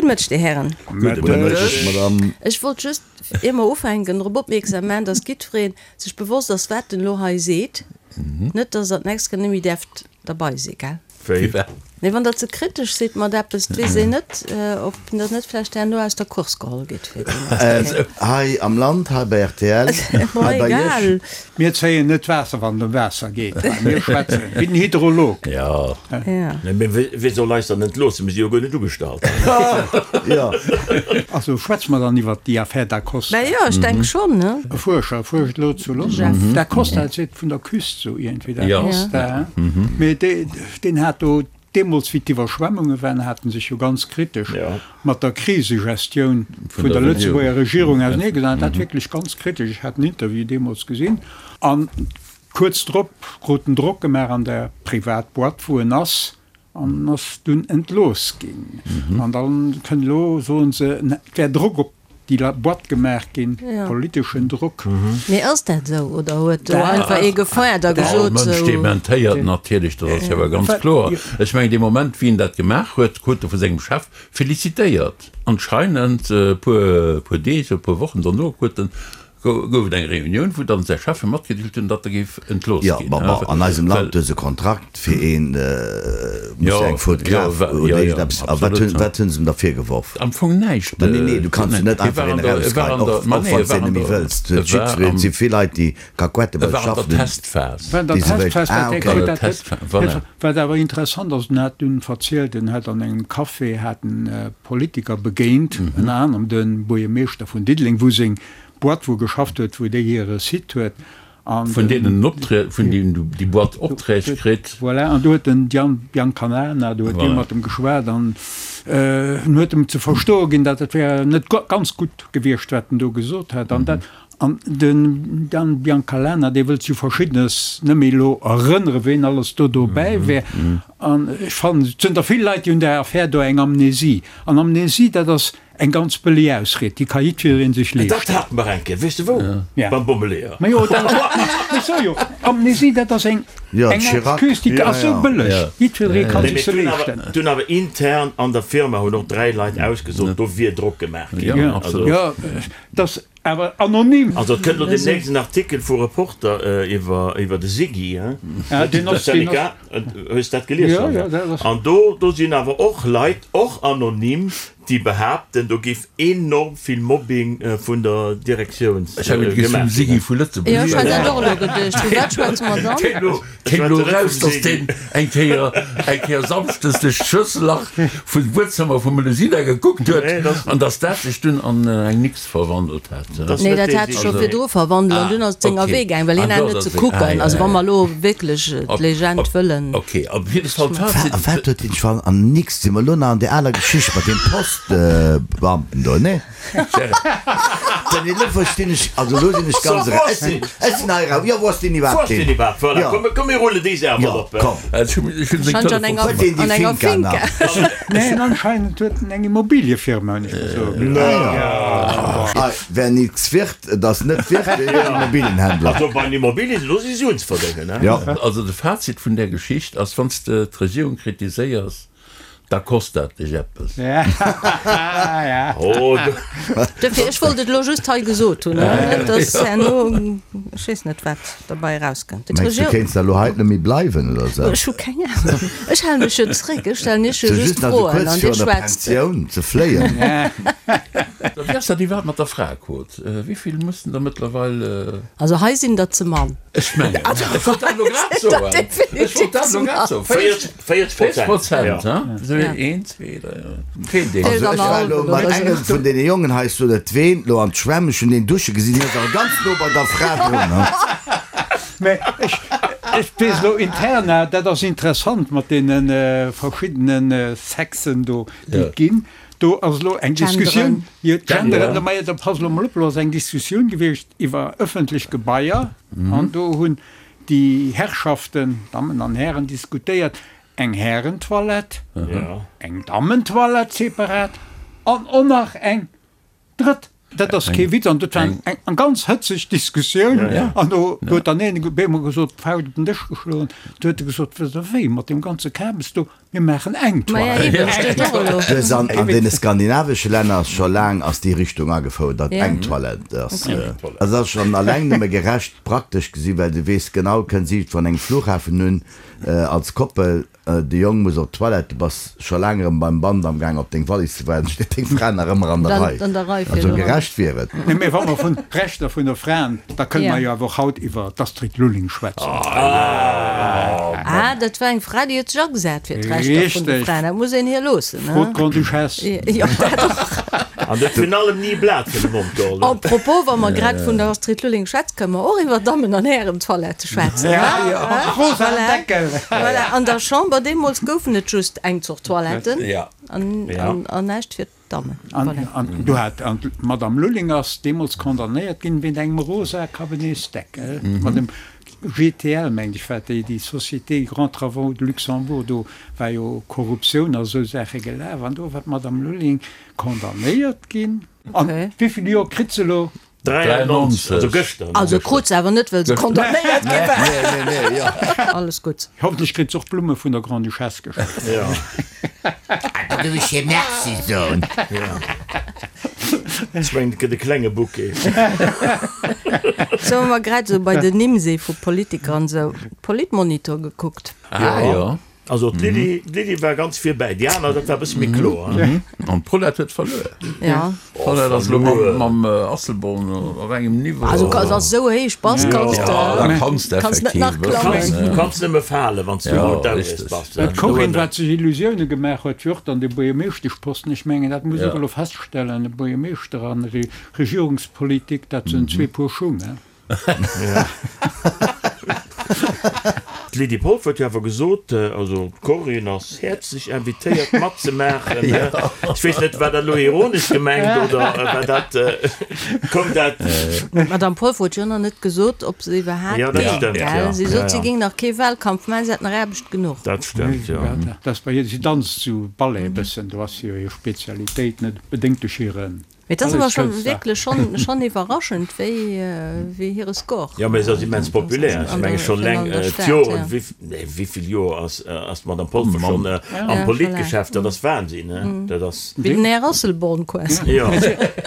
Gudde Mëtteg, Dir Hären. Gudde Mëtteg, Madame. Ech wollt just, ier mer ufänken, drop opmierksam maachen, dass jiddweree sech bewosst ass, wat en elo hei seet. Net, dass Der d'nächst Kéier net méi däerft derbei sinn, gell? Wéi? Nee, wann Der ze kritesch sidd mat eppes, et weess een net, ob Der net vläicht herno aus der Course geholl gitt fir déi nächst Kéier. Hei am Land, hei bei rtl, hei bei Iech. Mir zéien net d'Waasser, wann et ëm Waasser geet. Mir schwätzen wéi den Hydrolog. Jo. Mee wie soll eis dann entloossen? Mir si jo guer net ugestallt. Jo. Also schwätze mer dann iwwert déi Affär Da Costa? Mä jo, ech denke schonn, ne? E Fuerscher fuerscht elo zu London. Da Costa seet vun der Küst sou iergendwéi, Da Costa. Mee deen hat do deemools, wéi d'Iwwerschwemmunge waren, hat en sech jo ganz kritesch mat der Krisegestioun vun der Lëtzebuerger Regierung auseneegesat. Dat wierklech ganz kritesch. Ech hat den Interview deemools gesinn. An kuerz drop krut en Drock gemaach an der Privatboîte, wou en ass, an ass dunn entlooss ginn. An da kënnt elo, soen se, et wär Drock op déi Boîte gemaach ginn, politeschen Drock. Mee ass dat esou oder huet do einfach ee gefeiert a gesot, All Mënsch dementéiert natierlech, dat ass jo awer ganz kloer. Ech mengen, dee Moment, wéi en dat gemaach huet, krut e vu sengem Chef felicitéiert. Anscheinend e puer Deeg oder e puer Wochen dono huet en Gouf et eng Reunioun, wou dann säi Cheffe matgedeelt hunn, datt e géif entlooss Jo, ginn. ma bon, an eisem Land hues e Kontrakt fir een, muss eng Fotograf oder iergendeppes. A wat hunn, wat hunn se em da virgeworf? Am Fong näischt. Ma nee, nee, du kanns jo net einfach een erausgeheien, och, och wann s de een net méi wëlls. Et huet jiddwereen, et si vill Leit, déi Kakuette bei E sech war an der schaffen hunn, Testphas. War an der déi se wéilt. Testphas, Ah, dat okay. huet dat Testphas, voilà. Wat awer interessant ass, en hat dunn verzielt, en hat an engem Café hat en Politiker begéint, ënner anerem de Buergermeeschter vun Diddeleng, wou seng Boîte wou geschafft huet, wou déi hire Site huet. An Vun deenen en Opträ, vun deenen du déi Boîte Opträg kritt. Voilà, an do huet den Gian Biancalana, do huet dee mat em geschwat an en huet em ze verstoe ginn, datt et wär net ganz gutt gewiescht, wat en do gesot hätt. An dat, an den Dan Biancalana, dee wëllt sech u Verschiddenes net méi elo erënnere ween alles do dobäi wär. An ech fannen, et sinn der vill Leit, déi hunn där Affär do eng Amnesie. An Amnesie, dat ass Eng ganz bëlleg Ausried, déi ka jiddweree sech Dat leeschten. hate mer eng Kéier, weess de wou? Ja. Beim Bommeleeër. Ma jo, dat, ech soe jo, Amnesie, dat ass eng, Ja, eng Chirac. Excuse, déi Ja, ass sou ja. bëlleg, Ja. jiddweree ka Nee, sech mee se d'hunn awer, leeschten. d'hunn awer intern an der Firma hunn och 3 Leit ausgesot, do wier Drock gemaach ginn. Ja, Ja, absolut. ja, dat ass awer anonym. Also et kënnt elo deemnächst en Artikel vu Reporter iwwer, iwwer de Siggy, hein? Ja, deen ass, deen ass. Syndicat, hues dat gelies? Ja, ja, dat ass. An do, do sinn awer och Leit, och anonym, déi behaapten, do géif enorm vill Mobbing vun der Direktioun Ech hat geduecht, vum gemaach Siggy ginn. vu Lëtzebuerg. Jo, ech hat dat och elo geduecht. Vu wat schwätze mer dann? Kéim elo, kéim elo eraus, datt deen eng Kéier, eng Kéier samschdes duerch d'Schlëssellach vum Buedzëmmer vum Melusina gekuckt huet an datt dat sech dunn an eng Nix verwandelt hat. Nee, dat hat sech scho virdru verwandelt an dunn ass et senger Wee gaang, well hien hat net ze kucken. Also wa mer elo wierklech d'Legend wëllen. Ok, op jidde Fall d'Fazit. A wat huet hien scho an nix? Si mer elo nach an där aler Geschicht mat deem Postbeamten do, nee? Denn elo verstinn ech, also elo sinn ech ganz era, ech sinn, ech sinn hei era, jo, wou ass deen Wou iwwerhaapt ass deen hin? iwwerhaapt? Voilà, Jo. komm, komm mir rullen déi Saach Jo, mol op. komm. Ech hunn seng Scheint an enger, Huet deen déi an enger Finca Finca. nach? Neen, anscheinend huet en eng Immobiliefirma, hunn ech gesot. Ah, wer nix wird, et ass net wird, deen ass Immobilienhändler. Also bei den Immobilien, do si Suen ze verdéngen, ne? Jo. Also de Fazit vun där Geschicht ass, wann s de d'Regierung kritiséiers, Da kost dat dech eppes. Dofir, ech wollt et elo just hei gesot hunn, net dass herno, ech weess net, wat derbei erauskënnt. Mengs du, kéints da elo hei net méi bleiwen oder sou? Ech hu keng Ahnung. Ech hale mech jo zréck. Ech stellen Iech jo Sou just just nach sou Froen kuerz an Dir virun der schwätzt. Pensioun ze fléien. Wéi ass dat iwwerhaapt mat der Fraequot? Wéi vill mussen der mëttlerweil? Also hei sinn der ze mann. Ech mengen, ech wollt dat elo grad soen. Ech wollt dat elo grad soen. 40 Prozent, ha? Esou een, zwee, dräi, feelt een. Also ech war elo mat engem vun deene Jongen hei, ech soen net ween, elo an d'Schwämm, ech hunn deen dusche gesinn, hien ass awer ganz no bei der Fra drun, ha. Mä ech, ech weess elo interna, dat ass interessant mat deene verschiddene Sexen do, déi et ginn. Do ass elo eng Diskussioun, jo, d'Genderen, mä da pass elo mol op, elo ass eng Diskussioun gewiescht iwwer ëffentlech Gebaier an do hunn déi Herrschaften, Dammen an Hären, diskutéiert, eng Härentoilette, eng Dammentoilette separat an och nach eng drëtt. Dat ass kee Witz an dat war eng ganz hëtzeg Diskussioun. An do huet dann een op eemol gesot, d'Fauscht op den Dësch geschloen, du huet e gesot, Wësst Der wéi, mat deem ganze Kabes do, mir maachen eng Toilette. Dës an deene skandinavesche Länner ass scho laang ass déi Richtung agefouert, datt eng Toilette ass. Dat ass schonn alleng nëmme gerecht praktesch gesi, well du weess genau, kënns iergendwou an engem Flughafen un als Koppel, De Jong muss op d'Toilette, du bass scho laang erëm beim Band am Gaang op deng Wallis ze waarden, steet deng Fra nach ëmmer an der Rei. Also gerecht wier et. Nee, mee wa mer vun Rechter vun der Fraen, da kënne mer jo awer och haut iwwer d'Astrid Lulling schwätzen. Ah, dat war eng Fra, déi huet sech agesat fir d'Rechter vun de Fraen. Dat muss een hir loossen, ne? Fro d'Grande-Duchesse. Jo, dat och. An huet virun allem ni e Blat fir de Mond geholl. A propos, wa mer grad vun der Astrid Lulling schwätzen, kënne mer och iwwer Dammen an Hären-Toilette schwätzen. Ja, ja, rosa Deckel. Voilà, an der Chamber deemools goufen et just eng Zort Toiletten an näischt fir d'Dammen. Voilà. An do hat d'Madame Lulling ass deemools condamnéiert ginn wéint engem rosa Cabinetsdeckel mat dem GTL, mengt ech, war déi, déi Société Grands Travaux de Luxembourg, do war jo Korruptioun a sou Saache gelaf an do war d'Madame Lulling condamnéiert ginn. An wéivill Joer kritt se elo? 93, also gëschter. Also krut se awer net, well se condamnéiert gi war. Nee, nee, nee, jo. Alles gutt. Hoffentlech kritt se och Blumme vun der Grande-Duchesse geschenkt. Jo. Da géif ech hir Merci soen. Ech mengen, et gëtt e klenge Bouquet. Sou, wa mer grad esou bei den Nimm si vu Politiker an esou, Politmonitor gekuckt. Ah jo. Also d'Lydie, d'Lydie war ganz virbäi, déi aner, dat war e bësse méi kloer. An d'Paulette huet verluer. Ja. D'Paulette ass elo mam, mam Asselborn op engem Niveau. Also kanns ass esou héich bass, kanns de. Ja, da kanns de Kanns net effektiv nach e bëssen. klammen. Du kanns nëmme falen, wann s du Ja, Mount Everest richteg. bass. Dat D'Corinne, wat sech Illusioune gemaach huet, fir och dann de Buergermeeschteschposten, ech mengen, dat muss och elo feststellen, e Buergermeeschter an Regierungspolitik, dat sinn zwee Puer Schung, he. D'Lydie Polfer huet jo awer gesot, also d'Corinne ass häerzlech invitéiert matzemaachen. Ech weess net, war dat elo ironesch gemengt oder war dat, koum dat? D'Madame Polfer huet jo nach net gesot, ob se iwwerhaapt Jo, dat géing, stëmmt, gell? jo. Si sot, Ja, si ja. géing nach kee Wahlkampf maachen, si hätt nach Aarbecht genuch. Dat stëmmt, jo. Dat ass bei hir, si danzt sou Ballet e bëssen, do ass jo hir Spezialitéit, net bedéngt duerch hire Mee et ass awer scho wierklech schonn schonn iwwerraschend, wéi wéi hire Score. Jo, mee se ass immens populär. Ech menge schonn an eleng der Stad, d'Joren, ja. wéi nee wéivill Joer ass ass d'Madame Polfer schonn am Politgeschäft, dat ass Wahnsinn, ne? Dat ass. Wéi den Här Asselborn quasi. Jo.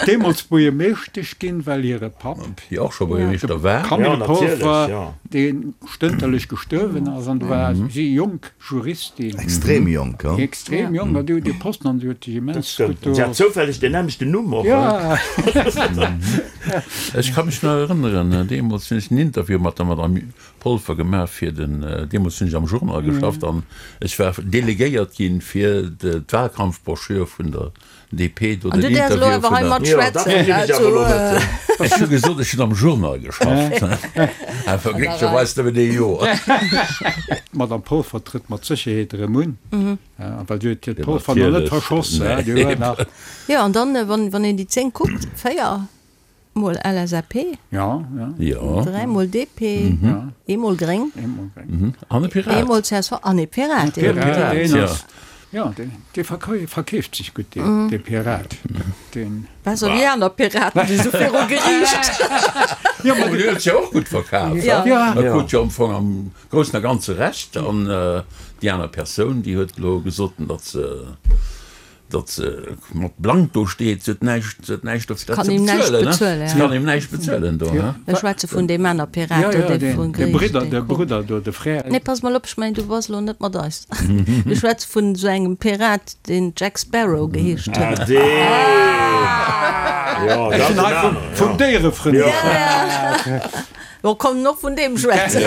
Deemools Buergermeeschtesch ginn, well hire Papp, Déi och scho Buergermeeschter war. Jo, Camille natierlech, Polfer, jo. dee stënterlech gestuerwen ass, an do war si jonk. Juristin. Extrem jonk, jo. Extrem jonk, an déi huet dee Posten an déi huet sech immens gutt do. Si hat zoufälleg deen nämmlechten Numm och. Ja. Ech ka mech nach erënneren, deemools hunn ech en Interview mat der Madame Polfer gemaach fir den, deemools hunn ech am Journal geschafft an ech war delegéiert ginn, fir d'Wahlkampfbroschür vun der DP do den Interview vun der. Ech hu gesot, ech hunn am Journal geschafft. Awer glécklecherweis nëmmen ee Joer. D'Madame Polfer trëtt mat Sécherheet erëm un, well si huet hiert Polfer nach net verschoss. Jo, an dann, wann een déi 10 kuckt, 4 Mol LSAP, 3 mol DP, ee mol Gréng, An e Pirat. ee mol csv an ee Pirat. Ee Pirat, deen ass, jo, dee verkeeft sech gutt, dee Pirat. Deen. Besser wéi aner Piraten, déi sou viru Geriicht. Jo, ma deen huet sech jo och gutt verkaf. Jo. E krut jo am Fong am Groussen a Ganze Recht. An déi aner Persoun, déi huet elo gesot, datt se. Datt se mat blank do steet, se huet näischt, se huet näischt dofir dat ze bezuelen, se kann him näischt bezuelen do, he? Ech schwätze vun deem aner Pirat do, dee vun De Bridder, de Brudder do, de Frère. Nee, pass mol op, ech mengen, du bass elo net mat eis. Ech schwätze vun esou engem Pirat, deen Jack Sparrow geheescht huet. Ah, deen! Jo, Ech hunn hei vum, vum Déierefrënd geschwat. Bon, komm, och vun deem schwätzen.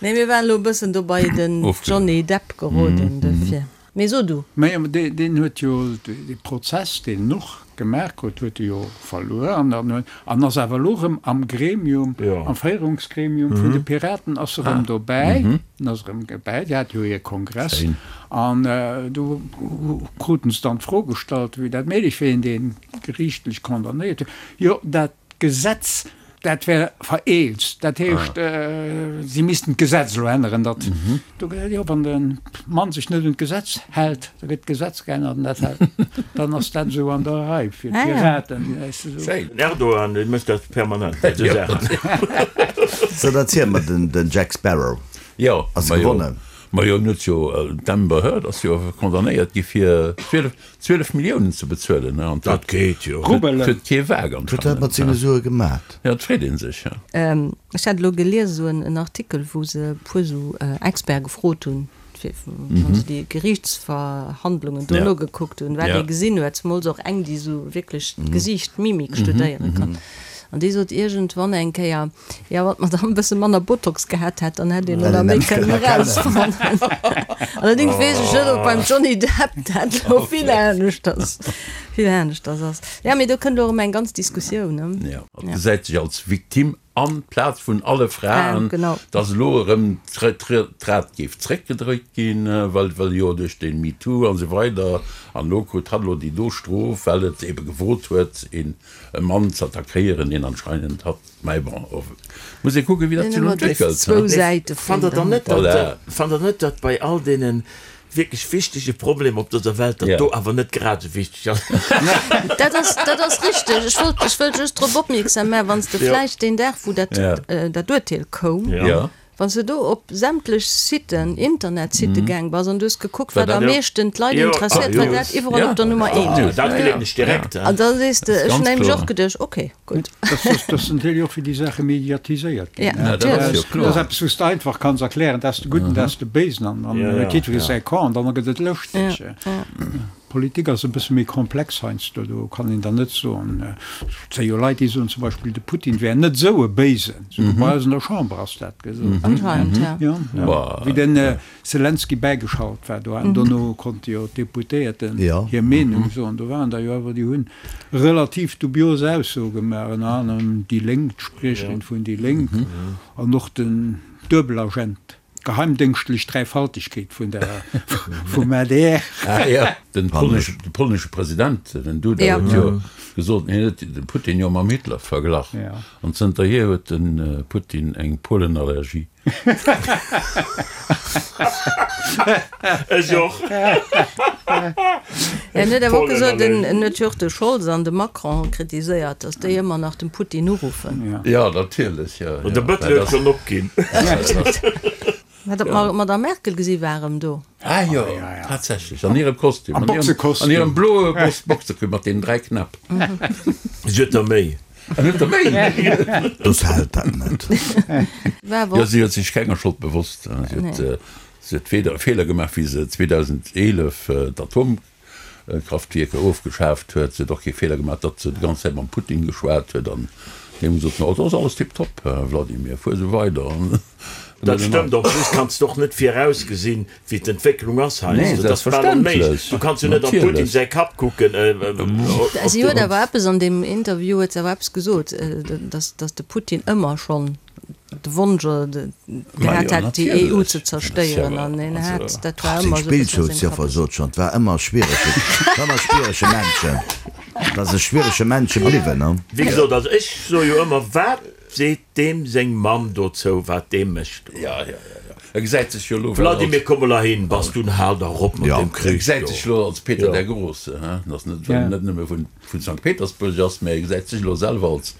Nee, mir waren elo e bëssen do bei den Johnny Depp geroden, dofir. Mee so du. Mä deen huet jo dee Prozess, deen en och gemaach huet, huet e jo verluer an dann huet, an ass awer elo erëm am Gremium, am Féierungsgremium vun de Piraten ass e rëm dobäi, en ass erëm dobäi, déi hate jo hir Kongress an do kruten se dann d'Fro gestallt, wéi dat méiglech wier, een dee geriichtlech condamnéiert wier, jo dat Gesetz, dat wär vereelzt, dat heescht, si missten d'Gesetz elo änneren, datt do, jo, wann de. Mann sech net un d'Gesetz hält, da gëtt d'Gesetz geännert an dat hält, dann ass dat esou an der Rei fir d'Piraten. Schéin. Den Erdogan, dee mécht dat permanent, esou Saachen. So, dann ziel mer den Jack Sparrow Jo, ass gewonnen. Majo, en huet jo, d'Amber Heard ass jo condamnéiert gi fir 12, 12 Milliounen ze bezuelen, an dat geet jo. Rubelen. Huet kee Waak Wat huet dat mat senge Sue gemat? Ja, et freet ee sech, ja. Ech hat elo gelies esou en Artikel, wou se e puer esou Experte gefrot hunn, fir wa se déi Geriichtsverhandlungen do nogekuckt hunn, wat ee gesinn huet, zemools och eng, déi esou wierklech d'Gesiicht, d'Mimik studéiere kann. An déi sot iergendwann eng Kéier, Jo, wann d'Madame e bësse manner Botox gehat hätt, dann hätt een elo nach méi kënnen erausfannen. Allerdéngs weess ech net, ob beim Johnny Depp dat elo vill aneschters, vill aneschters ass. Jo, mee do kënnt elo erëm eng ganz Diskussioun, ne? Jo, et gesäit sech als Victime amplaz vun alle Fraen, dass elo erëm d'Rad géif zréckgedréit ginn, well well jo duerch de MeToo an esou weider, an elo krut hatt elo déi do Strof, well et ebe gewot huet, een e Mann z'attackéieren, deen anscheinend hatt. Mä bon, muss ee kucken, wéi dat sech elo entwéckelt. Fannt Der dann net, fannt Der net, datt bei all deene wierklech wichtege Problemer op dëser Welt, datt do awer net grad esou wichteg ass? Dat ass, dat ass richteg. Ech wollt, ech wëll just drop opmierksam maachen, wann s de vläicht deen Dag, wou dat, dat Urteel koum, Wann s de do op sämtlech Siten, Internetsitte gaang bass an du hues gekuckt, wat am meeschten d'Leit interesséiert, war dat iwwerall op der Nummer eent. Dat gleewen ech direkt. An da sees de, ech hunn nämlech och geduecht, ok, gutt. Dat ass natierlech och, wéi déi Saache mediatiséiert ginn. Dat ass eppes, wou s de einfach kanns erklären, dat ass de Gudden, dat ass de Béisen an dann huet jiddweree säi Camp an dann gëtt et lëschteg. Politik ass e bësse méi komplex heiansdo, do kann een dann net soen, et si jo Leit, déi soen zum Beispill, de Putin wär net esou e Béisen, souguer bei eis an der Chamber ass dat gesot ginn, jo, wéi den Selenskyj bäigeschalt war do an dono konnte jo d'Deputéierten hir Meenung soen, do waren der jo awer, déi hunn relativ dubios Aussoe gemaach, ënner anerem déi Lénk, d'Spriecherin vun déi Lénk an och den Duebelagent. D'geheimdéngschtlech Dräifaltegkeet vun der vum adr. Ah jo, den polnesche President, den Duda, huet jo gesot, hien huet de Putin jo mam Hitler verglach. An zënterhier huet de Putin eng Polenallergie. Ech och. En huet awer och gesot, en huet jo och de Scholz an de Macron kritiséiert, datt déi ëmmer nach dem Putin uruffen. Jo, natierlech, jo. De Bëttel huet schonn opginn. Hat der d'Madame Merkel gesi war erëm do? Ah jo, tatsächlech, an hirem Kostüm, an hirem bloe Boxekostüm mat deenen 3 Knäpp. Si huet der méi. An huet der méi? Dass hält dat net. Jo, si huet sech kenger Schold bewosst. Si huet Si huet weder e Feeler gemaach, wéi se 2011 d'Atomkraftwierker ofgeschaaft huet. Si huet och kee Feeler gemaach, datt se déi ganz Zäit mam Putin geschwat huet an deem gesot huet, Oh, et ass alles tiptop, Wladimir, fuer esou weider. Dat stëmmt. En plus kanns de och net virausgesinn, wéi d'Entwécklung ass heiansdo. Dat ass bal onméiglech. Du kanns jo net am Putin säi Kapp kucken. Si huet awer eppes an deem Interview huet se awer eppes gesot, datt de Putin ëmmer schonn de Wonsch gehat hätt, déi EU ze zerstéieren an hien hat, dat war ëmmer esou e bëssen a sengem Kapp. Seng sot schonn, 't war ëmmer schwierege, war ëmmer schwierege Männchen, 't ass e schwierege Männche bliwwen, ne? Wéi gesot, also ech soe jo ëmmer, wat seet deem seng Mamm dozou, wat dee mécht do? Jo, jo, jo, jo, e gesäit sech jo elo well als. Vladimir, komm mol heihin, bass du en, hal dach op mat deem Krich do. E gesäit sech elo als Peter der Große, he, dat ass net, well en net nëmme vun. vun Sankt Petersburg ass, mä e gesäit sech elo selwer als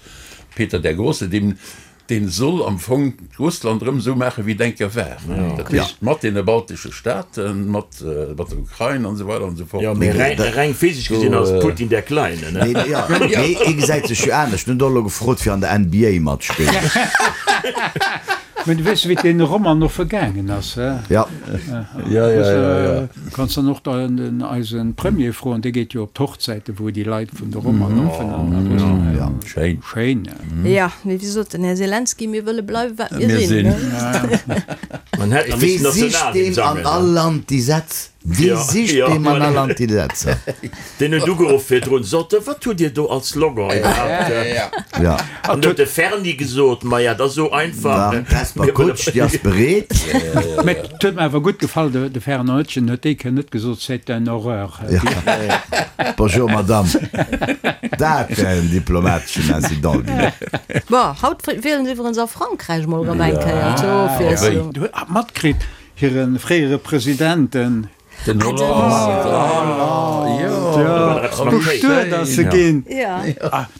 Peter der Große, deen dee soll am Fong Russland erëm esou maachen, wéi et eng Kéier war, dat heescht mat deene baltesche Staaten, mat mat der Ukrain an esou weider an esou fort. Jo, mee reng physesch gesinn ass Putin der Kleine, ne? Nee, jo, mee hie gesäit sech jo anescht. En huet och elo gefrot, fir an der NBA matspillen. Mä du weess, wéi et deene Romanoffe gaangen ass, he? Ja. Ja, ja, ja, ja. Kanns dann och den eise Premier froen, dee geet jo op d'Hochzäiten, wou déi Leit vun de Romanoffen an a Russland. Ja, schéin. Schéin. Ja, mee wéi sot den Här Selenskyj, mir wëlle bleiwen, wat mir sinn, ne? Man hätt nach Wee missen sicht Nationalhymn deem an sangen. all Land déi Sätz? Wee sicht deem an all Land déi Sätzer? Deen huet ugeruff virdrun, sot e, wat hutt Dir do als Slogan iwwerhaapt? Ja. An huet de Ferni gesot, maja, dat ass esou einfach. D'Hesper Kutsch, déi ass bereet. Mä et huet mer awer gutt gefall, de Fernand Etgen huet déi Kéier net gesot, c'est une horreur. Bonjour Madame. Dat wär en diplomateschen Incident ginn. Bon, haut wielen se iwwerens a Frankräich mol erëm eng Kéier zur Ofwiesslung. Du hues matkritt? Hire fréiere President, den. Den Hollande, jo. Bestuet ass se ginn.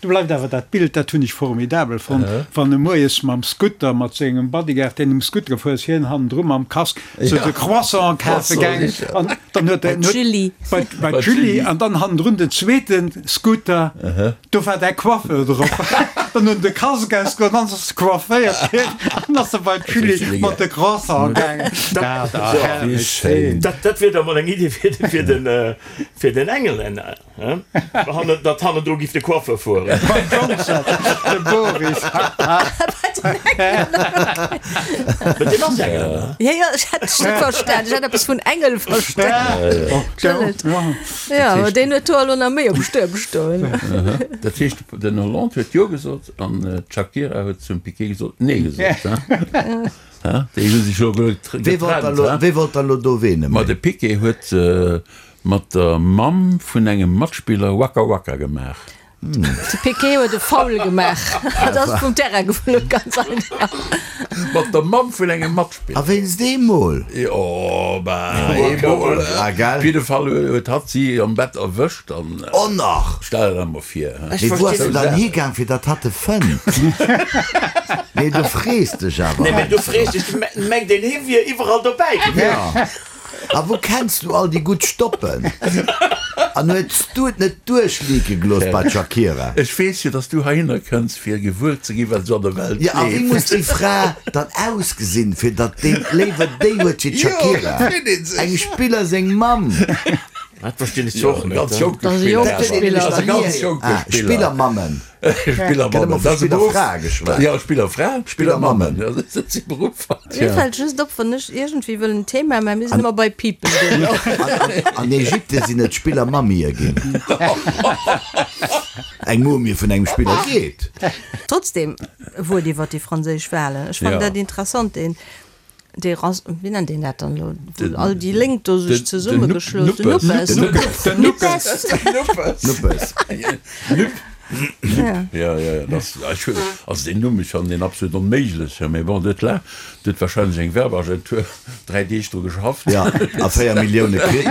Do bleift awer dat Bild, dat hunn ech formidabel fonnt, wann e moies mam Scooter mat sengem Bodyguard, deen um Scooter gefuer ass, hien hannendru mam Casque, sou de Croissant kafe gaangen an dann huet en. Bei d'Julie. An dann hannendrun den zweete Scooter. Do war däi Coiffeur drop. Dann hunn de Casque ausgeholl, dann ass se coifféiert ginn an ass se bei d'Julie mat de Croissant gaangen. Dat ass herrlech schéin. Dat wier da mol eng Idee fir fir den Engelänner, he? Datt hannendru giff de Coiffeur fueren. Beim Johnson, de Boris. Bei den Engelänner, okay. Mä deen ass Engelänner. Jo, jo, ech hat dech net verstan. Ech hat eppes vun Engel verstan. Entschëllegt. Jo, deen huet do elo nach méi um Stuerm stoen. Dat heescht, den Hollande huet Jo gesot an d'Shakira huet zum Piqué gesot Nee gesot. Déi hu sech elo getrennt. Wee wollt dann elo do ween Ma de Piqué huet mat der Mamm vun engem Matspiller Waka Waka gemaach. De Piqué huet e Foul gemaach an ass vum Terrain geflunn, ganz einfach. Mat der Mamm vun engem Matspiller. A wéinst eemol? Jo, bah, eemol. Ah, gell? Op jidde Fall huet hatt si am Bett erwëscht an. Oh nach! Stell der dat mol vir, he? Mee wou ass en dann higaang, fir datt hatt e fënnt? Nee, du frees dech awer. Nee, mee du frees dech, mengt een, hie wier iwwerall dobäi gewiescht. Ja. A wou kenns du all déi gutt Stoppen? An huets du et net duerchleake gelooss bei d'Shakira? Ech weess jo, dass du heihinner kënns, fir gewuer ze ginn, wat esou an der Welt Jo, a wéi leeft. muss déi Fra dann ausgesinn, fir datt deen léiwer déi huet wéi Jo, d'Shakira? dat freet ee sech. Engem Spiller seng Mamm. Dat verstinn ech zwar och Jo, net. ganz jonke Dat ass e Spiller jonke awer. Spiller. Dat ass e ganz jonke Ah, Spiller. Spillermammen. Spillermammen, dat ass e Beruff. Spillerfrae geschwat. Jo, Spillerfra, Spillermammen, jo, dat si Beruffer. Mir fält just op, wann ech iergendwéi wëll en Thema maachen, mir sinn ëmmer bei People duerno. An Ägypte sinn et Spillermamie ginn. Eng Mumie vun engem Spiller geet. Trotzdem, e Wuert iwwer déi franséisch Wahlen. Ech fannen dat interessant, deen Dee Ras, wéi nennt een dat dann elo, wou all déi Lénk do sech zesummegeschloss hunn? Den Nuppes. Den Nuppes. Nuppes. Nuppes. Nupp. Nupp. Ja, ja, ja, das, ech hunn, also deen Numm, ech fannen deen absolut onméiglech, mee bon, dat la, do huet wahrscheinlech eng Werbeagentur 3 Deeg dru geschafft. Ja, a 4 Millioune kritt.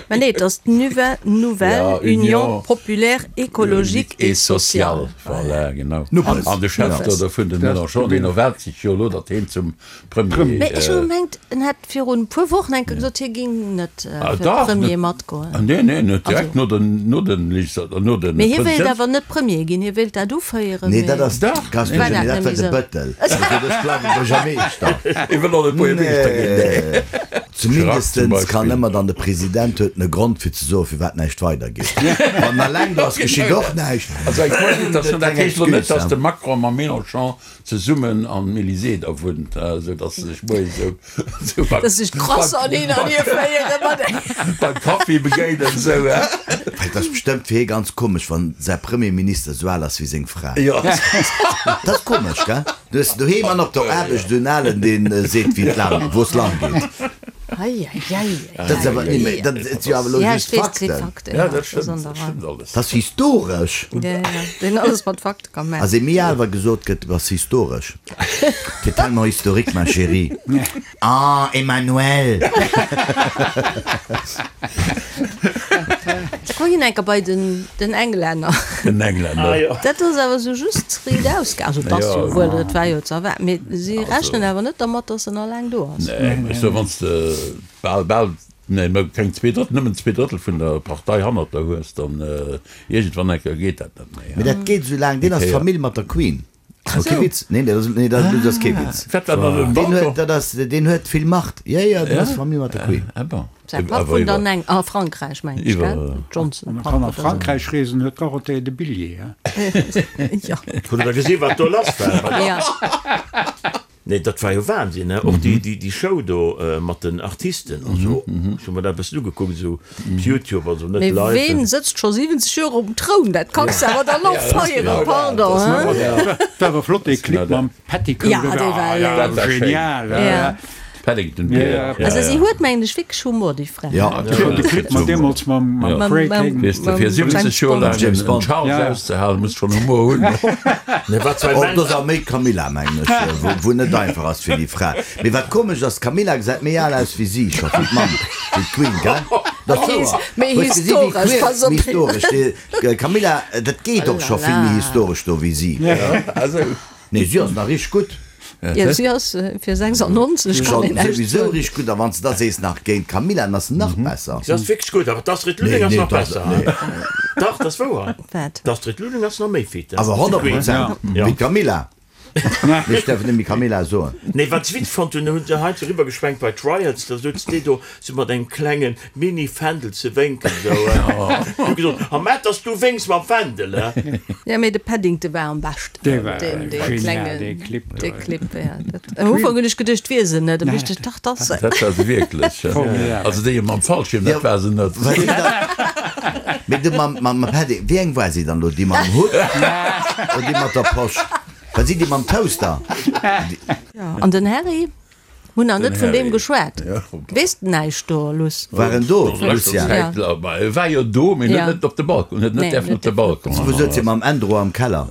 Mä nee, et ass d'Nuve, Nouvelle Union Populaire Écologique et Sociale. Voilà, genau. Nuppes. An de Chef do dovun, de Mélenchon, deen erwaart sech jo elo, datt heen zum Premier. Mee ech hu gemengt, en hätt virun e puer Wochen eng Kéier gesot, hie ging net fir Premier matgoen. Nee, nee, en huet direkt no den, no den Legislat-, no den. Mee hie wéilt awer net Premier ginn, hie wéilt dat uféieren. Nee, dat ass, Gast, War dat dat net war méi de esou? Bëttel. Also ech bleiwe Buergermeeschter. Hie wëll och net Buergermeeschter ginn, nee. Zumindestens kann ëmmer dann de President huet en e Grond fir ze soen, firwat näischt weidergeet. Wann en alleng do ass, geschitt och näischt. Also eng Cohabitation, dat heescht elo net, datt de Macron mam Mélenchon Zesummen am Elysée da wunnt, esou datt se sech moies esou beim. Datt sech d'Croissanten hin an hier féiere mat engem. Beim Kaffi begéinen, esou, he? Et ass bestëmmt fir hie ganz komesch, wann säi Premierminister esou al ass wéi seng Fra. Jo. Dat ass komesch, gell? Du hues doheem an op der Aarbecht esou en Alen, deen seet, wéi et laang, wou es lang geet. Ei, ei, ei, ei. Dat ass awer, nee, mä dat si jo awer elo just Fakten. Ja, dat stëmmt, dat stëmmt alles. Dat ass historesch. Ja, ja, deen alles mat Fakte ka maachen. Ass ee méi al, wa gesot gëtt, du bass historesch. T'es tellement historique, ma chérie. Ah, Emmanuelle! Da komm ginn enker bei den, den Englänner. Den Englänner. Ah, jo. Dat ass awer sou just riit ausgaangen. Also, et ass jo wuel, et war jo ze erwaarden, mee si rechnen awer net dermat, datt en alleng do ass. Nee, ech soe, wann s de bal, bal, nee, mä keng zweedrëttel, nëmmen zweedrëttel vun der Partei hannert der hues, dann iergendwann eng Kéier geet dat net méi. Mee dat geet esou laang, deen ass Famill mat der Queen. Ass kee Witz. Nee, dat ass, nee, dat ass kee Witz. Wat war dann den Deen huet, Balcon? dat ass, deen huet vill Macht. Jo, jo, deen ass Famill mat der Queen. Ah bon. Säi Papp wunnt an Eng, a Frankräich, mengen ech, gell? Johnson, Wann e Papp kann a oder sou. Frankräich reesen, huet d'Dorothée de Billet, he? Jo. Hutt Der gesi wat do lass war? Ja. Nee, dat war jo Wahnsinn, ne? Och déi, déi, déi Show do mat den Artisten an esou. Ech hu mer dat e bëssen ugekuckt, esou op Youtube, also net Mee live. ween sëtzt scho 70 Joer um Troun? Dat kanns de awer dann och feieren, pardon, hein? War awer flott dee Clip mam Petticoat. Ja, dee war genial. Ja. Paddington Bear. Also si huet mengen ech wierklech Humor déi Fra. Jo, de Clip mat deemools mam Craig Hagen. Weess de, fir 70 Joer laang en Charles auszehalen, muss schonn Humor hunn. Och do ass awer méi d'Camilla mengen ech, wou net einfach ass fir déi Fra. Mee wat komesch ass, d'Camilla gesäit méi al aus wéi si scho, wéi d'Mamm, wéi d'Queen, gell? Dat ass wouer. Méi historesch, pass op. Méi historesch. D'Camilla, dat geet och scho vill méi historesch do wéi si. Nee, si ass nach richteg gutt. Jo, si ass fir 96, kann een näischt soen. Souwisou richteg gutt, a wann s de da sees nach géint d'Camilla, dann ass se nach besser. Si ass wierklech gutt, awer d'Astrid Lulling ass nach besser. Dach, dat ass wouer. Wat? D'Astrid Lulling ass nach méi fit. Awer 100 Prozent wéi d'Camilla. Mee ech däerf et net méi Camilla soen. Nee, wat ech witzeg fonnt hunn, hunn se heiansdo eriwwer geschwenkt bei d'Riots, da souz déi do sou mat engem klenge Mini-Fändel ze wénken, sou. Hu gesot, A mä dass du wénks mam Fändel, he? Jo, mee de Paddington war am beschten. Dee war genial, dee Clip do. Dee Clip, ja. Dat, am Ufank hunn ech geduecht, 't wier se net, da wusst ech, dach, 't ass se. Dat war se wierklech, ja. Also déi mam Fallschierm, dat war se net. Mee du mam, mam Padding, wéi eng war si dann elo? Déi mam Hutt oder déi mat der Posch? War si déi mam Toaster? Jo, an den Harry? Hunn nach net vun deem geschwat. Weess de näischt do, Luss? War en do, Lucien? E war jo do, mee huet net op de Balcon, huet net däerfen op de Balcon. Wou souz hie mam Ändro am Keller?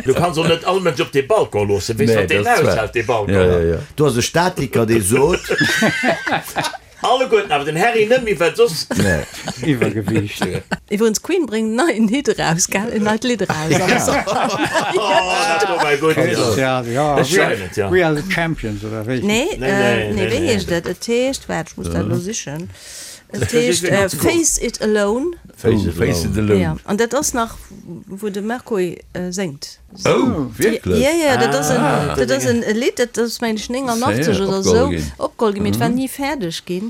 Du kanns och net all Mënsch op dee Balcon loossen. Weess wat deen aushält, dee Balcon? Do ass e Statiker, dee sot. Alleguerten, awer den Harry net méi, well soss. Nee. Iwwergewiicht. Iwwerens d'Queen bréngt en neien Hit eraus, gell? En neit Lidd eraus am Sommer. Oh, dat do war gutt, jo. Ech schreiwen et, jo. We are the champions, oder wéi? Nee, nee, wéi heescht et? Et heescht, waart, ech muss dat elo sichen. Et heescht Face It Alone. Face It Alone. Jo, an dat ass nach, wou de Mercury séngt. Oh, wierklech? Jo, jo, dat ass en, dat ass en Lidd, dat ass meng ech 89 oder esou opgeholl ginn, mee et war ni fäerdeg ginn.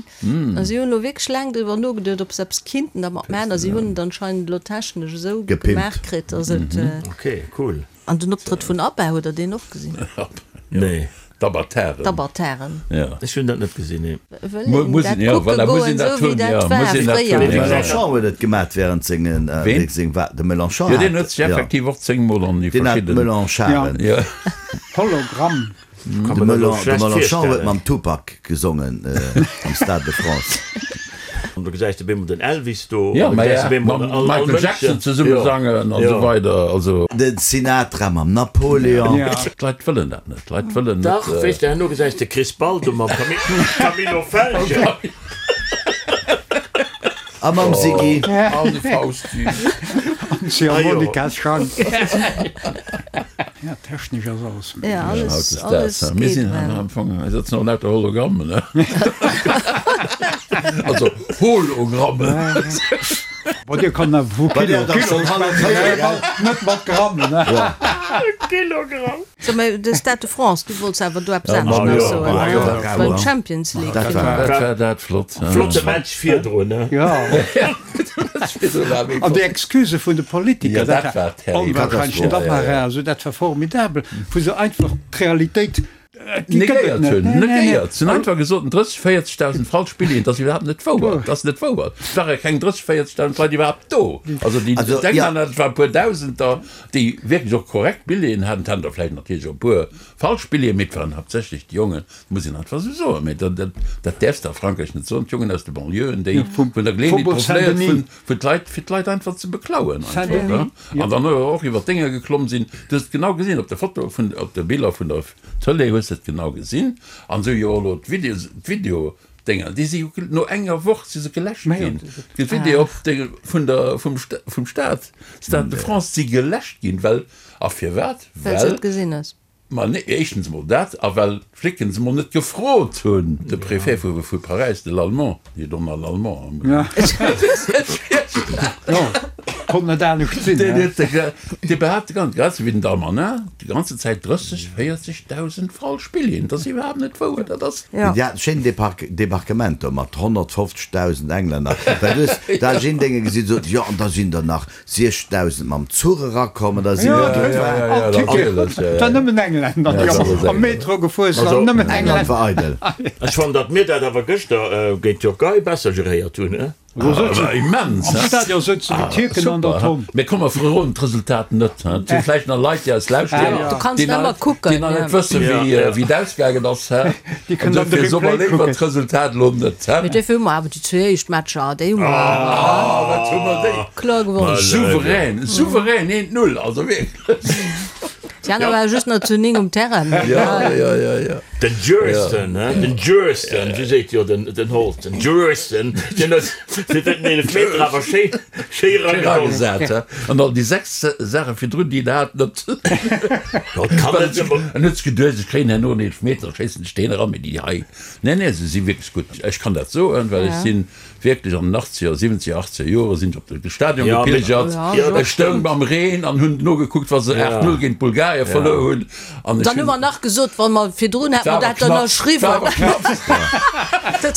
A si hunn elo wierklech laang driwwer nogeduet, ob se eppes kinnten dermat maachen, a si hunn et anscheinend elo technesch esou gemaach kritt, datt et. Ok, cool. An den Optrëtt vun ABBA, hutt der deen och gesinn? Nee. D'Abataren. D'Abataren. Ja. Ech hunn dat net gesinn, nee. Wëll een dat kucke goen, esou wéi dat war fréier. De Mélenchon huet et gemat während sengen, Ween? seng Wa, de Mélenchon Jo, deen hat, huet sech ja. effektiv och zéngmol an déi Deen hat verschidden. Mélencharen. Ja. Hologramm. Kann De mer dat elo Mélen, de schlecht Mélenchon huet virstellen. mam Tupac gesongen am Stade de France. An do gesäis de bemol den Elvis do, Ja, an do ma gesäis ja, de bemol mam all, all Michael Mënschen. Jackson zesumme Jo. sangen an Jo. esou weider, also. De Sinatra mam Napoleon. Ja. D'Leit wëllen dat net, d'Leit wëllen net. Dach, weess de, herno gesäis de Chris Baldo mam Camillo Felgen. A mam Siggy. An de Fausti. An d'Ziehharmonika-Schang. Ja, technesch ass alles méiglech. Ja, alles, Hautdesdaags, alles mir geet sinn well. am Fong, mir sëtzen och lauter Hologrammen, ne? Also Hologrammen. Bon, Dir kann awer vu Kilo, Kilo schwätzen, net mat Grammen, ne? Kilogramm. So, mä de Stade de France, du wollts awer do eppes anescht nach soen, ne? Beim Champions League Dat war, dat war dat flott. Flotte Match virdrun, ne? Ja. An déi Excusë vun de Politiker, dat war onwahrscheinlech, dat war also, dat war formidabel, wou se einfach d'Realitéit, déi gëtt et Negéiert net. hunn, Nee, nee, nee. negéiert. Se hunn einfach gesot, 30, 40.000 falsch Billeten, dat ass iwwerhaapt net wouer. Dat ass net wouer. Et ware keng 30, 40.000 Leit iwwerhaapt do. Also déi Also, denken ja. an, dat waren e puer Dausender, déi wierklech och korrekt Billeten haten. Et haten der vläicht natierlech och e puer falsch Billeten, mee et waren haaptsächlech déi Jongen, muss een einfach esou soen, mee dat, dat, dat däerfs de a Frankräich net soen, d'Jongen aus de Banlieuën, déi vun der Geleeënheet Faubourg profitéiert Saint-Denis. hunn, fir d'Leit, fir d'Leit einfach ze beklauen einfach, Saint-Denis, ne? An dann och iwwer d'Dénger geklomm sinn. Du hues et genau gesinn op der Foto vun, op de Biller vun der Tëlee hues de et genau gesinn. An esou jo och elo d'Videos, d'Videodénger, déi si jo no enger Woch si se geläscht ginn. D'Video op de, vun der, vum, vum Stad, Stade de France si geläscht ginn, well, a firwat? Well s et gesinn hues. Ma nee, éischtens emol dat, a well d'Flicken se emol net gefrot hunn, de Préfet vu vu Paräis, de Lallemand, nee, Donald Lallemand, Jo, konnt net anescht sinn, deen he? huet de, dee behaapt de ganzen, grad esou wéi den Darmanin, déi ganze Zäit 30, 40.000 falsch Billeten. Dat ass iwwerhaapt net wouer, dat ass. Jo. Déi haten schéin Debarquement do mat 150.000 Englänner, well du hues d'Argenténger gesinn, sot, jo, an da sinn der nach 6.000 mam Zuch erakommen, da sinn der do All Ticket, et war nëmmen Engländer, déi am Metro gefuer sinn, nëmmen England Engländer. war eidel. Ech fannen, datt mir dat awer gëschter géint d'Türkei besser geréiert hunn, he? Immens, Am Stadion souzen déi Tierken an der Tonn. Mee komm, mer verroden d'Resultat net. Et si vläicht nach Leit, déi eis lauschteren, déi nach net wëssen, wéi et ausgaangen ass. Déi kënnen dann de Dofir soe mer Replay léiwer kucken. d'Resultat elo net. Mee dofir hu mer awer déi zwee éischt Matcher, déi hu mer Ah, wat hu mer déi kloer gewonnen. Souverän, souverän, eent Null, also wierklech. Déi aner ware just nach zu 9 um Terrain. Ja, ja, ja, ja. Den Jurston, he, den Jurston, wéi seet jo den, den Holt, den Jurston, deen huet fir den Eelefmeter awer schéi, schéi eragesat, he. An all déi 6 Saache virdrun, déi en hat, net. Jo, et kann net ëmmer. En huet sech geduecht, ech kréien herno en Eelefmeter, schéissen ech deen eran, mee déi hei, nee, nee, se si wierklech gutt. Ech kann dat soen, well ech sinn Wierklech an den achtzeger, siwwenzeger, achtzeger Jore sinn ech op de Stadion gepilgert. Ech stoung am Reen an hunn nogekuckt, wa se 8, 0 géint Bulgarien verluer hunn. An ech Dann hu mer nach gesot, wa mer virdrun hätte mer dat ënnerschriwwen.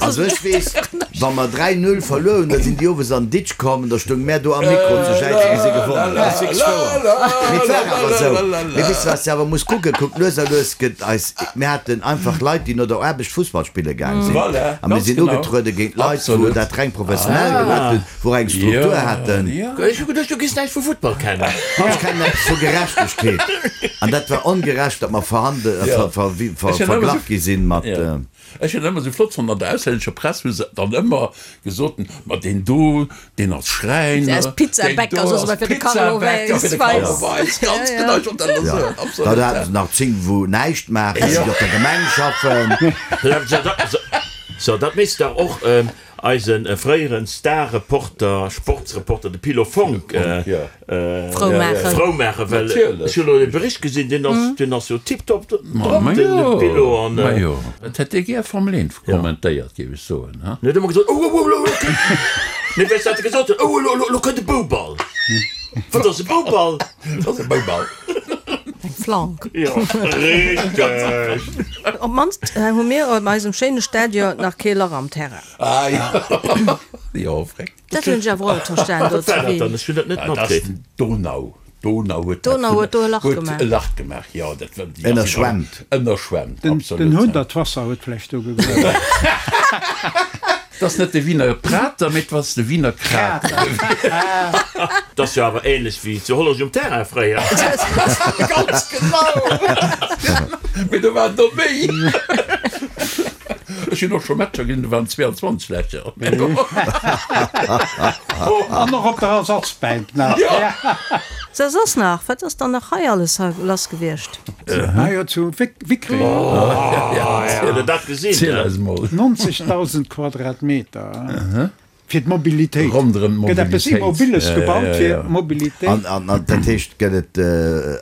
Also ech weess, wa mer 3, 0 verluer hunn, da sinn déi owes an Ditsch komm an da stoung mär do am Mikro ze jäizen, wéi si gewonnen hunn. Dat ass wierklech wouer. Mee et war awer esou. Mee weess de, wat s de awer muss kucken? Kuck, lues a lues gëtt eis, mir haten einfach Leit, déi no der Aarbecht Fussball spille gaang sinn. A mir sinn ugetruede géint Leit, wou dat reng professionell gemaach hunn, wou och eng Struktur haten. Ech hu geduecht, du giss näischt vu Futtball kennen. Ech kennen eppes vu Gerechtegkeet. An dat war ongerecht, datt mer verglach gi sinn mat. Ech hunn dat ëmmer esou flott fonnt, an der auslännescher Press hu se dann ëmmer gesot, ma deen do, deen ass Schräiner, Ass Pizzabäcker, soss ewell fir de Carlo Pizzabäcker fir de Carlo Weis, ganz genau, ech wollt dat elo soen, absolut. Da haten se nach 10, wou näischt maachen, déi op der Gemeng schaffen. So, dat misst dach och eise fréieren Star-Reporter, Sportsreporter, de Pilo Fonck, Frou maachen. Frou maachen, well ech hunn elo e Bericht gesinn, deen ass, deen ass jo tiptop drop, den Pilo. An. Majo, et hätt dee gär Formel 1 kommentéiert, géif ech soen, ha? En huet ëmmer gesot, Oh, oh, oh, elo kënnt, nee, weess wat e gesot huet, Oh, elo, elo, elo kënnt e Bouball. Wat ass e Bouball? Dat ass e Bouball. Eng Flank. Jo, richteg. Op d'mannst hu mir op eisem schéine Stadion nach kee Lach am Terrain. Ah jo, jo, freck. Dat hunn ech awer och net verstan do zu Wien. Ech hunn dat net matkritt. Dat ass den Donau. D'Donau huet dat D'Donau huet do e Lach gemaach. Huet e Lach gemaach, jo. Dat war, déi ass Ënnerschwemmt. Ënnerschwemmt, absolut. Den Hundertwasser huet vläicht do gegruewen. Et ass net de Wiener Prater, mee et ass de Wiener Krater. Dat ass jo awer ähnlech wéi zu Hollerech um Terrain fréier. Ganz genau! Mee do waren der méi. Ech hunn och scho Matcher gesinn, do waren 22 Lächer. An och op der Ersatzbänk nach. So, soss nach? Wat ass dann nach hei alles lass gewiescht? Ah jo, zu Wickreng. Huet der dat gesinn? Ziel eis mol. 90.000 Quadratmeter fir d'Mobilitéit. Ronderëm Gëtt eppes d'Mobilitéit. Immobiles gebaut fir d'Mobilitéit. An dat heescht, gëtt et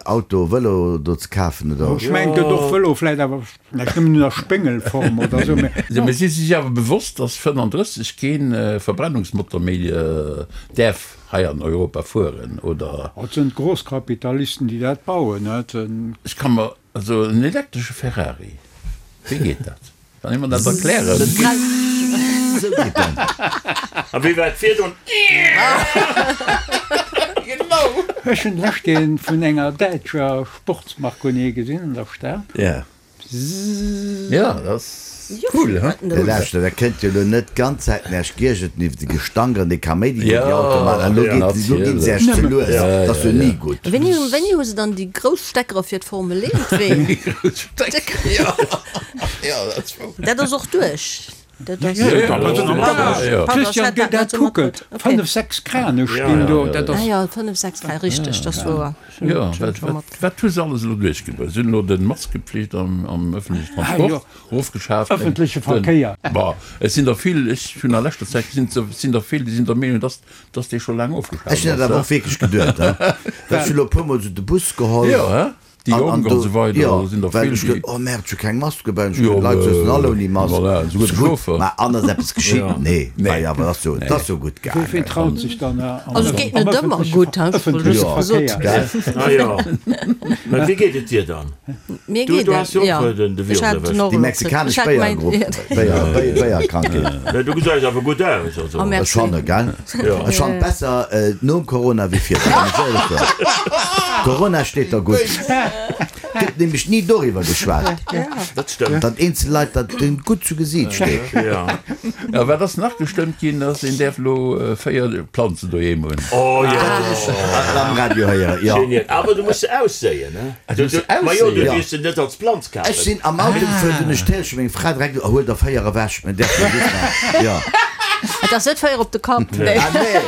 Auto, Vëlo do ze kafen, oder? Ech mengen, et gëtt och Vëlo, vläit awer vläicht nëmmen un der Spéngelform oder esou, mä. Mee si si sech awer bewosst, datt 35 kee Verbrennungsmotor méi däerf hei an Europa fueren, oder? Et sinn d'Großkapitalisten, déi dat bauen. Ech ka mer also en elektresche Ferrari, wéi geet dat? Kann ee mer dat erklären? Esou geet dat. A wéi war et virdrun? Genau! Ech hunn d'lescht een vun enger däitscher Sportsmarconnier gesinn an der Stad. Ja, dat ass cool, he? Mee lauschter, dat kënnt jo elo net d'ganz Zäit den Äerch giergeten iwwer de Gestank an de Kaméidi, deen déi Autoe maachen. An elo geet, elo ginn se Äerch ze lues. Dat ass jo ni gutt. Wéini, wéini hu se dann déi grouss Steckere fir d'Formel 1 Ween? Déi grouss Steckere, jo. Jo, dat ass wouer. Dat ass och duerch. Dat ass. Christian, géi dat kucken. Fënnef, sechs Krane stinn do. Dat ass. Ah jo, fënnef, sechs Krane, richteg, dat ass wouer. Jo, wat hu se alles elo duerchgebruecht? Se hunn elo de Maskepflicht am ëffentlechen Transport ofgeschaaft. Ëffentleche Verkéier. Bon, et sinn der vill, ech hunn a leschter Zäit gesinn, et sinn der vill, déi sinn der Meenung, dass dass dee scho laang ofgeschaaft Ech hunn dat ass. awer och wierklech geduet. Well ech hunn elo e puermol esou de Bus geholl. Jo, he? Déi An, an Jonk an do, esou weider, jo, do sinn der well vill, ech geduet, déi. oh merde, ech hu keng Mask dobäi, an ech Jo, geduet, d'Leit souzen all ouni Mask. voilà, esouguer de Gutt, Chauffer. mä an ass eppes geschitt? Nee, Nee. war jo awer, ass jo, et ass jo gutt Wee gaangen. traut sech dann am Also et geet net ëmmer ëffentleche gutt, he, ech wollt ëffentleche just gesot. Verkéier? Gell? Ah jo. Mä wéi geet et dir dann? Mir Du, geet du et, has jo och jo. den, de Ech Virus hat den erwëscht. och Déi elo kritt. mexikanesch Ech hat mäin, Béiergrupp, Béier, Béier, Béierkrankheet. Mä du gesäis awer gutt aus, also. Oh, Ech merci. fanne, gell? Jo. Ech fannen besser nom Corona wéi virdrun, muss ech éierlech soen. Corona steet der gutt. Gëtt nämlech ni doriwwer geschwat. Dat stëmmt. Datt eenzel Leit, datt deenen gutt zu Gesiit steet. Jo. A wat ass nach gestëmmt ginn, ass een däerf elo 4 Planzen doheem hunn. Oh jo. Dat hunn ech am Radio héieren, jo. Genial. Awer du muss se ausséien, ne? Ah, du muss se Ma jo, du ausséien? dierfs se net als Planz kafen. Ech sinn am Auto gefuer, dunn ech d'Télé, meng Fra direkt, oh, huel der 4 ewech, mir däerfen just nach, jo. Et ass net 4 op de Kapp, nee. Ah nee,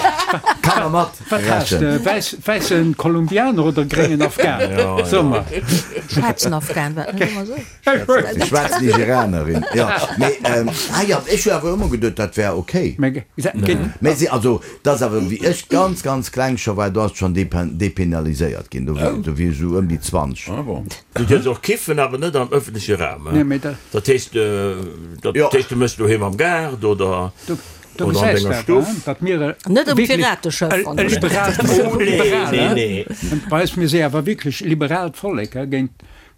Kanner mat. Wat has de? Wäiss, wäissen Kolumbianer oder gréngen Afghan? So mer. Schwaarzen Afghan, war dat net ëmmer esou? Déi schwaarz Nigerianerin, jo. Mee, ah jo, ech hu awer ëmmer geduet, dat wär ok. Mee si, also, dat ass awer, wéi ech ganz, ganz kleng scho war, do ass et schonn depenaliséiert ginn, do wier ech esou ëm déi 20. Ah bon. Du dierfs och kiffen, awer net am ëffentleche Raum. Dat heescht, dat heescht, du méchs doheem am Gaart oder. Do gesäis de awer, datt mir Net um Pirateschëff e liberaalt Bei eis, mir si awer wierklech e liberaalt Vollek, géint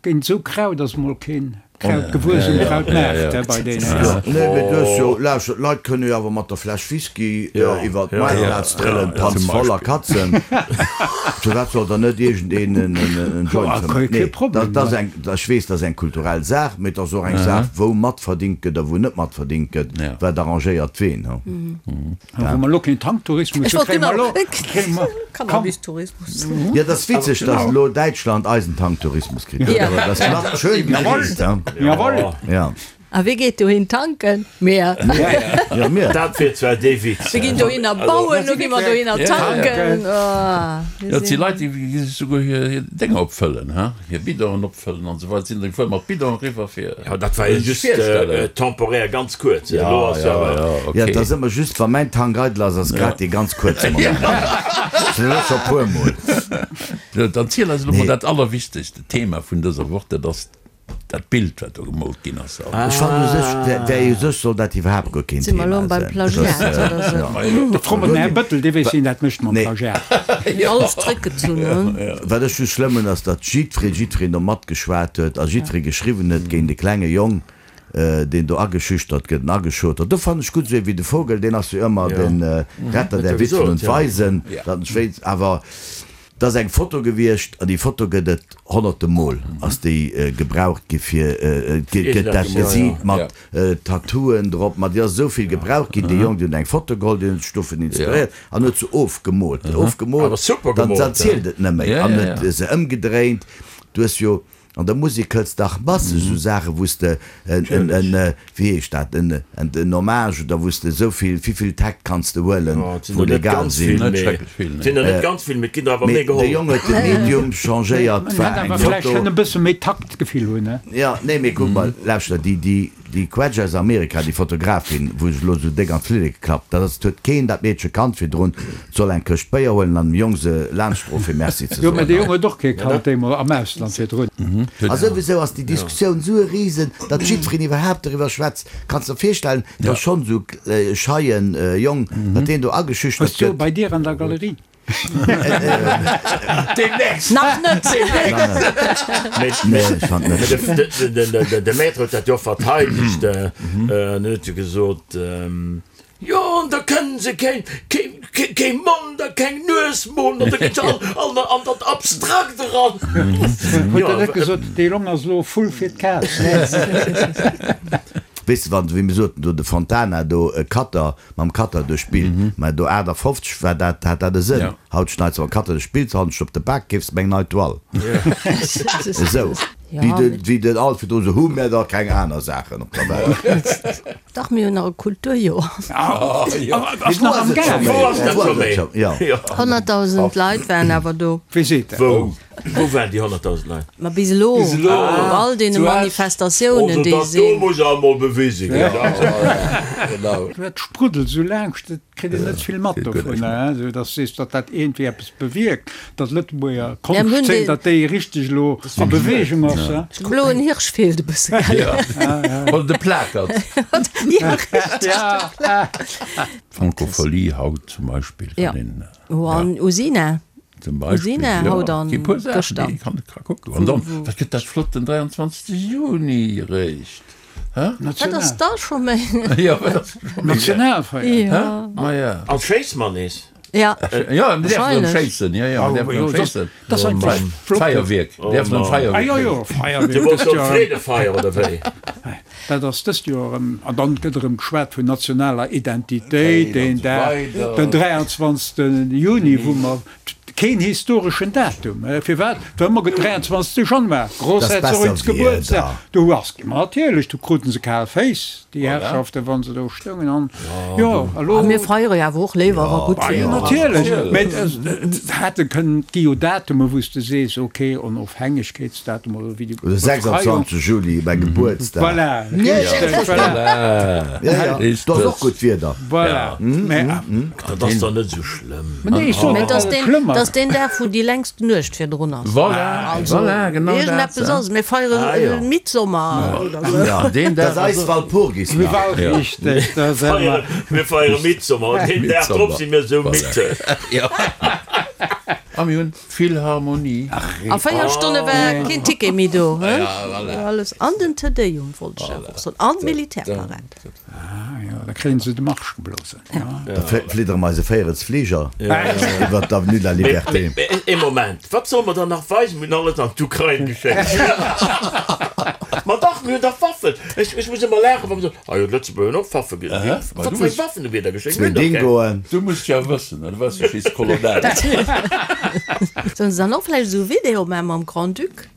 géint esou Kraut ass mol keen Kraut gewuess um Krautmaart bei deenen. Nee, mee du hues jo, lauschter, d'Leit kënne jo awer mat der Fläsch Whisky iwwer d'Maartplaz trëllen, Panz voll a Katzen. Firwat soll dann net iergendeen en Joint fëmmen? Nee, dat ass eng, ech weess, dat ass eng kulturell Saach, mee et ass och eng Saach, wou matverdingt gëtt a wou net matverdingt gëtt. Wat arrangéiert ween? Hu? Wa mer elo keen Tanktourismus Ech hu, wollt kréie mer genau, elo, kréie mer, komm. Cannabistourismus. Jo, et ass witzeg, datt elo Däitschland eisen Tanktourismus kritt huet, awer dat ass nach schön gereest, he? Jawohl! Ja. A wie geet dohin tanken? Mir. Ja, mir. Dat wier zwar dee Witz. Mir ginn dohinner bauen, lo gi mer dohinner tanken. Oh, Jo, et si Leit, déi gi sech souguer hir hir Dénger opfëllen, he, hir Bidonen opfëllen an esou weider, sinn da gefuer mat Bidon eriwwer fir Jo, dat war jo sech just virstellen. temporär, ganz kuerz. Elo ass jo awer. Ja, Ja, okay. et ass ëmmer just, wa mäin Tank eidel ass, ass grad dee ganz kuerze Moment. Dat elo scho puer Mol. Sou, dann ziel eis elo mol Nee. dat allerwichtegste Thema vun dëser Woch, dat ass Dat Bild wat do gemoolt ginn ass. Ech fannen u sech, wär u sech soll dat iwwerhaapt guer keen Si mer Thema elo beim sinn. Plagiat oder sou? Da fro mer den Här Bëttel, dee weess wien dat mécht mam Plagiat. Mir alles zréckgezunn hunn. Wat ech just schlëmm hunn ass, datt jiddweree, jiddwereen do matgeschwat huet a jiddweree geschriwwen huet géint e klenge Jong, deen do ageschüchtert gëtt an ageschot huet. Do fannen ech gutt, esou ee wéi de Vogel, deen ass jo ëmmer de Retter der Witwen und Waisen, datt en ech wéinst awer. Et ass eng Foto gewiescht, an déi Foto gëtt et honnerte Mol ass déi gebraucht gi fir, gëtt dat gesiit mat Tattooen drop, ma déi ass esou vill gebraucht ginn. Dee Jong, deen huet eng Foto geholl, deen huet sech dovun inspiréiert an huet se ofgemoolt. Ofgemoolt, dann zielt et net méi an huet se ëmgedréint. Du hues jo An der Musek hëls dach masseg esou Saachen, wou s de en, en, en, wéi heescht dat, en, en, en Hommage oder wou s de esou vill, wéivill Takt kanns de huelen, Jo, et sinn wou der net legal ganz sinn. vill, Net mee schrecklech vill, et sinn der net ganz vill, mee et ginn der awer Mee méi de geholl. Jong huet de Medium changéiert, En war hätt eng awer vläicht Foto. kënne e bësse méi Taktgefill hunn, ne? Jo, nee, mee kuck mol, lauschter, déi, déi, Déi Quetsch aus Amerika, déi Fotografin, wou sech elo esou déck an d'Flilleke klappt, dat ass, et huet keen dat Meedche kannt virdrun, et soll eng Këscht Béier huelen an dem Jong se laanschtdroen fir Merci ze Jo, mä soen. de Jong huet och kee kannt deemol am Ausland virdrun. A souwisou ass déi Diskussioun esou e Risen, datt jiddwereen iwwerhaapt doriwwer schwätzt. Kanns der virstellen, datt schonn esou e scheien Jong, datt deen do ageschüchtert Hues du gëtt. bei dir an der Galerie? Demnächst! Nach net! Nee, ech fand net. De Maître huet dat jo verteidegt an huet jo gesot, Jo, an da kënnen se keen, kee Mond a keng Nues molen an da ginn se all an dat Abstrakt eran. Huet der net gesot, dee Jong ass elo e Vull fir d'Kaz? Weess de, wann, wéi mir soten do, de Fontana do, e Cutter, mam Cutter duerch d'Bild, mä do 58 war dat, hat dat e Sënn. Haut schneits de mam Cutter duerch d'Bild, hannescht op de Bak keefs de meng nei Toile. Esou wéi de, wéi den Alfred do esou, hu mär da keng aner Saachen op der Welt? Dach, mir hunn nach e Kulturjoer. Ass nach am Gaang. Wou ass dat scho méi? 100.000 Leit waren awer do. Wee seet dat? Wou? Wou waren déi 100.000 Leit? Ma bis elo, op all deene Manifestatiounen, déi Also dat do sinn. muss awer mol bewise ginn. Genau. Dat spruddelt esou laangscht, et kritt een net vill mat dovun, esou datt s sees, datt dat iergendwéi eppes bewierkt, datt d'Lëtzebuerger Konschtzeen, datt déi richteg elo a Beweegung ass. De bloen Hirsch feelt e bësse, gell? Oder de Plakert. Jo, richteg, de Plakert. D'Francophonie haut zum Beispill kann een. Jo, an Usina. Zum Beispill, Usina jo, haut an gi puer Saachen, gëschter. déi kann ka kucken. An dann, wat gëtt dat flott den 23. Juni eréischt, hä? Wat ass da scho méi? Jo, wat ass scho méi? Nationalfeierdag. Hä? Ma ja. An d'Schéiss mer nees. Ja, Ja, mir däerfen erëm schéissen. Ja, ja, mir däerfen erëm schéissen. Dat ass eigentlech flott. Feierwierk, däerfen erëm Feierwierk. Ah jo, jo, Feierwierk. Du wolls soen Freedefeier, oder wéi? Dat ass dëst Joer erëm. An dann gëtt erëm geschwat vun nationaler Identitéit, deen Dag, den 23. Juni, wou mer Keen historeschen Datum. Firwat? Well ëmmer gëtt 23. Januar, Grossherzogins Gebuertsdag, do ass, ma natierlech, do kruten se kal Féiss, déi Herrschaften, wa se do stoungen an, jo, elo. A mir feiere jo awer och léiwer, wa gutt Wieder ass. Jo, natierlech, mä et hätte kënnen, et gi jo Datume wou s de sees, ok, Onofhängegkeetsdatum oder wéi déi Oder 26. Juli, mäi Gebuertsdag. Voilà, richteg, voilà. Ja, ja, do ass och gutt Wieder. Voilà, mä. Dat ass dann net esou schlëmm. Mä nee, ech soen net, datt et deen, schlëmm ass. Dass deen Dag, wou déi längst Nuecht virdrun ass. Voilà, also, voilà, genau dat. Iergendeppes ass. Mir feiere ah, ja. Midsommer oder sou. Ja, deen Dag. Dat ass eis Walpurgisnacht. Ja. Richtig, dat ass ëmmer. Mir feiere Midsommer an deen Dag drop si mir esou midd. Ja. A mir hunn Philharmonie. A 4 Stonne war keen Ticket méi do. Alles an den Te Deum wollt ech awer och soen an d'Militärparad. Ah jo, da kréien se de Marsch geblosen. Da fliddere mer eise Véierels Fliger iwwer d'Avenue de la Liberté. Mee ee Moment, wat solle mer dann nach weisen? Mir hunn alles an d'Ukrain geschéckt. Ma dach, mir hunn dach Waffen. Ech muss ëmmer laachen, wa mer soen, Ah jo, d'Lëtzebuerger hunn och Waffe ge. Wat fir eng Waffen hu mir da geschéckt? Zwee Dingoen. Du muss jo wëssen, du waars jo Schiesskolonell. Sollen se dann och vläicht esou e Video maachen mam Grand-Duc?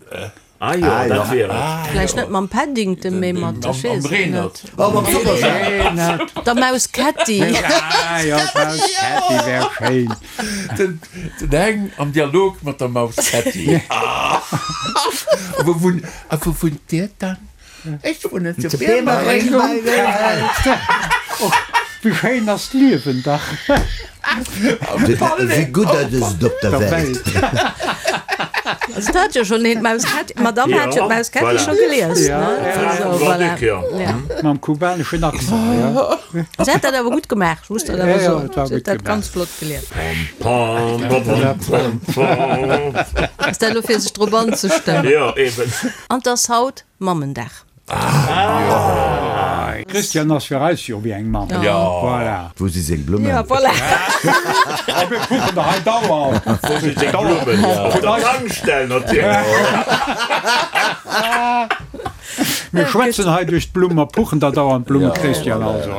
Ah jo, dat wier et. Vläicht net mam Paddington, mee mat, ech weess et net. Oh, mam Zuckersack. Der Maus Ketti. Ah jo, d'Maus Ketti wär schéin. Den Heng am Dialog mat der Maus Ketti. A wou wunnt Dir dann? Ech wunnen zu Biermereng. Och wéi schéin ass d'Liewen dach. Wéi gutt ass et op der Welt. Also dat hat jo schonn een d'Maus Ketti, d'Madame hat jo d'Maus Ketti scho gelies, ne? Also voilà. Mam kubaneschen Accent, jo. Si hat dat awer gutt gemaach, ech muss dat awer soen. Si huet dat ganz flott gelies. Ass dat elo fir sech drop anzestëmmen? Jo, eben. An 't ass haut Mammendag. Christian ass fir eis jo wéi eng Mamm. Voilà. Wou si seng Blummen? Ja, voilà. A mir kucken der hei dauernd. Wou si seng Blummen? Op der Tankstell natierlech. Mir schwätzen hei duerch d'Blumm, mer puchen der dauernd Blummen, Christian, also.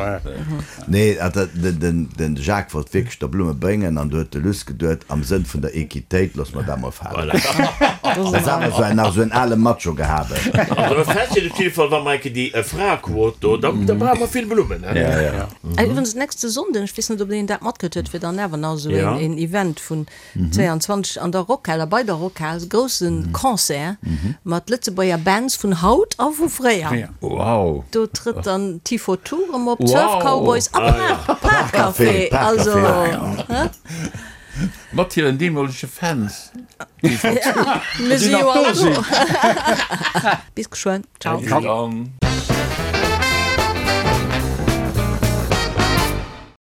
Nee, den Jacques wollt wierklech der Blumme bréngen an du huet de Luss geduet, am Sënn vun der Equitéit, loosse mer dat mol falen. Dat ass awer esou en, nach esou en ale Macho-Gehabe. Also fest steet op jidde Fall, wa mer enke déi Fraequot do, da brauche mer vill Blummen. Iwwregens nächste Sonnden, ech weess net, ob een dat matkritt huet, wier dann awer nach esou een Event vun 22 an der Rockhal a bei der Rockhal, e grousse Concert mat Lëtzebuerger Bands vun haut a vu fréier. Wow! Do trëtt dann T-For-Two erëm op, d'Surf Cowboys a Park Café. Also, hä? Mat hiren deemolege Fans. Mir si jo all do. Bis geschwënn. Ciao. Bis dann.